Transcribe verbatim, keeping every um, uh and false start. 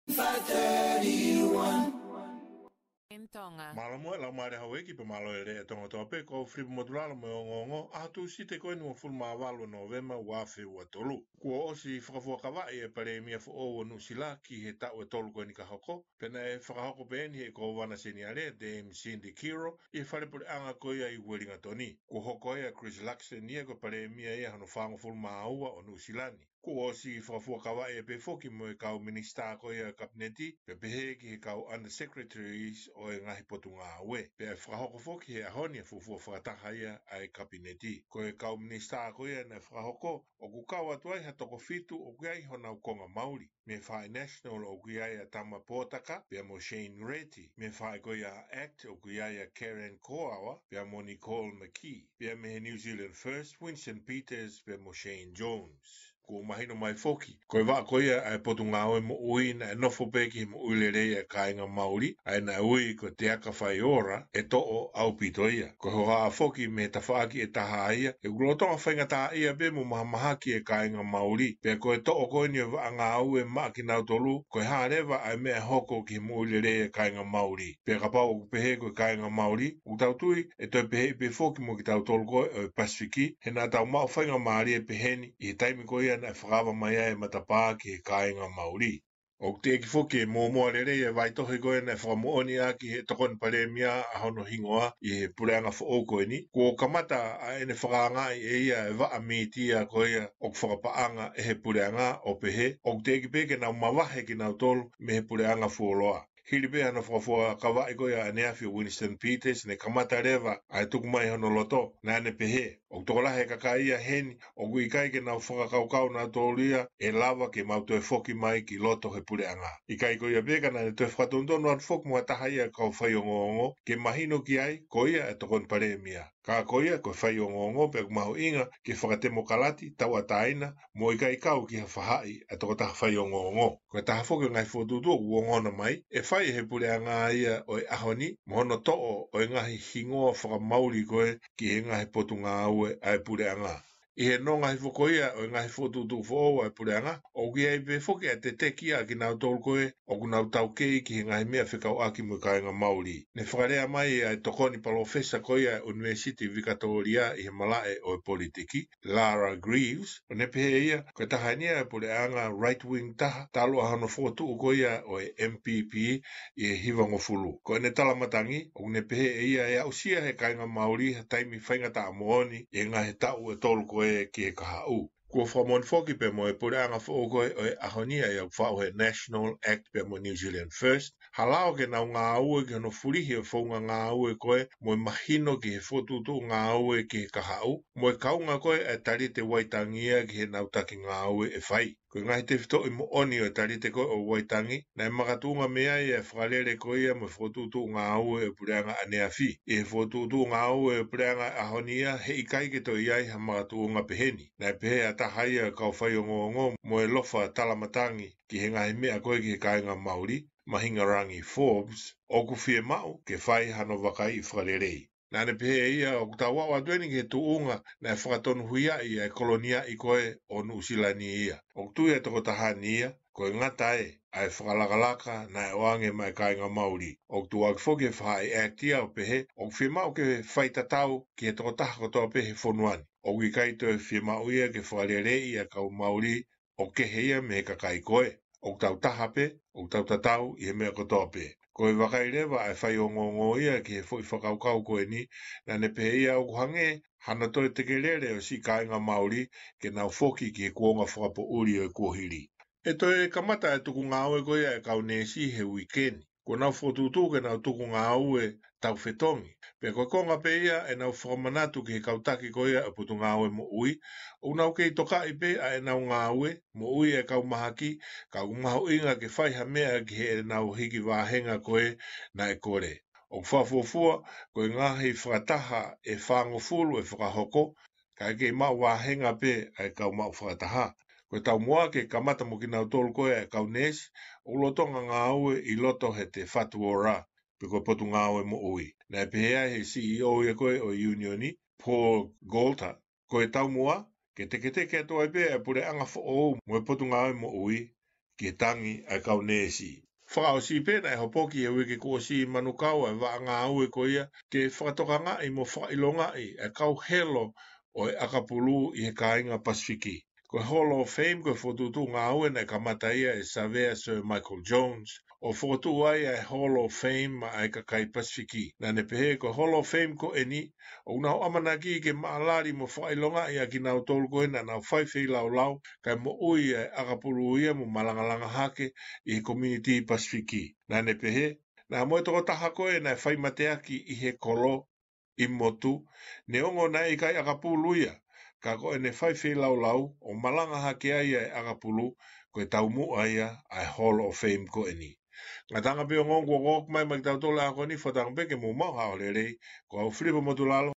five thirty-one. In Tonga. Mālō muʻa e laumālie houʻeiki pea mālō e lelei ʻa Tonga kotoa pē, ko Filipa Motulalo mo e ongoongo, ʻaho Tūsite ko eni uofulu mā valu ʻo Nōvema ua afe ua tolu. Kuo ʻosi fakafuakavaʻi e Palēmia foʻou ʻo Nuʻusila ki he taʻu ʻe tolu ko eni ka hoko, pea naʻe fakahoko pē eni ʻe he Kōvana Seniale, Dame Cindy Kirk, ʻi he fale puleʻanga ko ia ʻi Uelingatoni. Kuo hoko ai ʻa Chris Luxon ia ko e Palēmia ia hono fāngofulu mā ua ʻo Nuʻusila ni. Kuo ʻosi fakafuakavaʻi pē foki mo e kau minisitā ko ia ʻo e Kapineti, pea pehē ki he kau Undersecretaries ʻo e ngaahi potungāue. Pea fakahoko foki he ʻaho ni ʻa e fuofua fakataha ia ʻa e Kapineti. Ko e kau minisitā ko ia naʻe fakahoko, ʻoku kau atu ai ha toko fitu ʻoku ʻi ai honau konga Mauli. Mei he faʻahi National ʻoku ʻi ai ʻa Tama Potaka, pea mo Shane Reti. Mei he faʻahi ko ia ʻa ACT ʻoku ʻi ai ʻa Karen Koaua, pea mo Nicole McKee. Pea mei he New Zealand First, Winston Peters, pea mo Shane Jones. Kuo mahino mai foki, ko e vaʻa ko ia ʻa e Potungāue Moʻui naʻe nofo pē ki he moʻui lelei ʻa e kāinga Mauli, ʻa ia naʻe ui ko e Te Aka Faiora, ʻe toʻo ʻaupito ia. Ko e hohaʻa foki mei he tafaʻaki ʻe taha ia, ʻoku lolotonga faingataʻaʻia pē mo mahamahaki e kāinga Mauli. Pea ko e toʻo ko eni e vaʻa ngāue maʻa kinautolu, ko e hā leva ʻa e meʻa ʻe hoko ki he moʻui lelei e kāinga Mauli. Pea kapau ʻoku pehē ko e kāinga Mauli, ʻoku tau tui ʻe toe pehē pē foki mo kitautolu ko ē ʻo e Pasifiki, he naʻa tau maʻu faingamālie pehē ni ʻi he taimi ko ia naʻe fakaava mai ai e matapā ki he kāinga Mauli. ʻOku teʻeki foki ke mōmoa lelei e vaitohi ko ē naʻe fakamoʻoni ʻaki ʻe he Tokoni Palēmia ʻa hono hingoa ʻi he puleʻanga foʻou ko eni. Kuo kamata ʻa ʻene fakaangaʻi ʻe ia e vaʻa mītia ko ia ʻoku fakapaʻanga ʻe he puleʻanga ʻo pehē, ʻoku teʻeki pē ke nau mavahe kinautolu mei he puleʻanga fuoloa. Hili pē hano fakafuakavaʻi ko ia ʻaneafi ʻo Winston Peters, ne kamata leva ʻa e tuku mai hono loto, naʻa ne pehē, ʻoku tokolahi e kakai ia heni, ʻoku ʻikai ke nau fakakaukau nautolu ia ʻe lava ke mau toe foki mai ki loto he puleʻanga. ʻIkai ko ia pē ka naʻa ne toe fakatonutonu atu foki mo ha taha ia kau faiongoongo, ke mahino ki ai, ko ia e Tokoni Palēmia. Ka ko ia ko e faiongoongo pea ʻoku mahuʻinga ke fakatemokalati, tauʻatāina, mo ʻikai kau ki ha faʻahi ʻa e tokotaha faiongoongo. Ko e taha foki e ngaahi fokotuʻutuʻu ʻoku ongona mai, ʻe fai ʻe he puleʻanga ia ʻo e ʻaho ni, mo hono toʻo ʻo e ngaahi hingoa fakamauli ko ē ki he ngaahi potungāue ʻa e puleʻanga. ʻI he nonga hifo ko ia ʻo e ngaahi fokotuʻutuʻu foʻou ʻa e puleʻanga, ʻoku ʻi ai pē foki ʻa e teteki ʻa kinautolu ko ē ʻoku nau taukei ki he ngaahi meʻa fekauʻaki mo e kāinga Mauli. Ne fakalea mai ʻa e tokoni palōfesa ko ia ʻa e ʻUnivēsiti Vikatōlia ʻi he malaʻe ʻo e politiki, Lara Greaves, ʻo ne pehē ʻe ia, ko e taha eni ia e puleʻanga right wing taha, talu ʻa hono fokotuʻu ko ia ʻo e M P P ʻi he hivangofulu. Ko ʻene talamatangi, ʻoku ne pehē ʻe ia ʻe aʻusia ʻe he kāinga Mauli ha taimi faingataʻa moʻoni ʻi he ngaahi taʻu ʻe tolu ko ē ki he kahaʻu. Kuo fakamoʻoni foki pea mo e puleʻanga foʻou ko ē ʻo e ʻaho ni ʻa ia ʻoku faʻu he National Act pea mo New Zealand First, ha lao ke nau ngāue ki hono fulihi e founga ngāue ko ē mo e mahino ki he fokotuʻutuʻu ngāue ki he kahaʻu, mo e kaunga ko ē ʻa e Talite Vaitangi ia ki heʻenau taki ngāue ʻe fai. Ko e ngaahi tefitoʻi moʻoni ʻo e Talite ko ē ʻo Vaitangi, naʻe makatuʻunga mei ai e fakalele ko ia mo e fokotuʻutuʻu ngāue ʻo e puleʻanga ʻaneafi. ʻI he fokotuʻutuʻu ngāue ʻo e puleʻanga ʻaho ni ia, heʻikai ke toe ʻi ai ha makatuʻunga peheni. Naʻe pehē ʻe ha taha ia kau faiongoongo mo e ʻofa talamatangi ki he ngaahi meʻa ko ē ki he kāinga Mauli, Mahingarangi Forbes, ʻoku fiemaʻu ke fai hano vakaiʻi fakalelei. Naʻa ne pehē ʻe ia ʻoku tau aʻu atu eni ki he tuʻunga naʻe fakatonuhiaʻi ʻa e koloniaʻi ko ē ʻo Nuʻusila ni ia. ʻOku tui ʻa e tokotaha ni ia, ko e ngata ē ʻa e fakalakalaka naʻe ʻoange maʻa e kāinga Mauli. ʻOku tuʻuaki foki e faʻahi Act ia ʻo pehē, ʻoku fiemaʻu ke faitatau ki he tokotaha kotoa pē he fonua ni. ʻOku ʻikai toe fiemaʻu ia ke fakaleleiʻi ʻa e kau Mauli ʻo kehe ia mei he kakai ko ē. ʻOku tau taha pē, ʻoku tau tatau ʻi he meʻa kotoa pē. Ko e vakai leva ʻa e faiongoongo ia ki he foʻi fakakaukau ko eni, naʻa ne pehē ʻe ia ʻoku hangē hano toe tekelele ʻo e siʻi kāinga Mauli ke nau foki ki he kuonga fakapoʻuli ʻo e kuohili. ʻE toe kamata e tuku ngāue ko ia ʻa e kau neesi he uike ni. Kuo nau fokotuʻutuʻu ke nau tuku ngāue taufetongi. Pea ko e konga pē ia ʻenau fakamanatu ki he kau taki ko ia ʻo e Potungāue Moʻui, ʻoku nau kei tokaʻi pē ʻa ʻenau ngāue moʻui e kau mahaki, ka ʻoku mahuʻinga ke fai ha meʻa ki heʻenau hiki vāhenga ko ē naʻe kole. ʻOku fakafuofua, ko e ngaahi fakataha ʻe fāngofulu ʻe fakahoko, kae kei maʻu vāhenga pē ʻa e kau maʻu fakataha. Ko e taumuʻa ke kamata mo kinautolu ko ē ʻa e kau neesi ʻoku lolotonga ngāue ʻi loto he Te Whatu Ora, pe ko e Potungāue Moʻui. Naʻe pehē ai ʻe he C E O ia ko ē ʻo e ʻiunioni, Paul Goulter, ko e taumuʻa ke teketeke atu ai pē ʻa e puleʻanga foʻou mo e Potungāue Moʻui, ki he tangi ʻa e kau neesi. Fakaʻosi pē naʻe hopoki he uike kuo ʻosi ʻi Manukau ʻa e vaʻa ngāue ko ia ke fakatokangaʻi mo fakaʻilongaʻi ʻa e kau helo ʻo e ʻakapulu ʻi he kāinga Pasifiki. Ko e Hall of Fame ko e fokotuʻutuʻu ngāue naʻe kamata ia ʻe Savea Sir Michael Jones ʻo fokotuʻu ai ʻa e Hall of Fame maʻa e kakai Pasifiki. Naʻa ne pehē ko e Hall of Fame ko eni ʻoku nau ʻamanaki ke maʻalali mo fakaʻilongaʻi ʻa kinautolu ko ē naʻa nau fai feilaulau kae moʻui ʻa e ʻakapulu ia mo malangalanga hake ʻi he community Pasifiki. Naʻa ne pehē, naʻa mo e tokotaha ko ē naʻe fai mateaki ʻi he kolo ʻi motu, neongo naʻe ʻikai ʻakapulu ia, ka ko ʻene fai feilaulau ʻo malanga hake ai ʻa e ʻakapulu, ko e taumuʻa ia ʻa e Hall of Fame ko eni. Ngataʻanga pē ongoongo kuo ʻoku mai mai kitautolu ʻa ko eni, fakatauange pē ke mou maʻu ha ʻaho lelei, ko au Filipa Motulalo,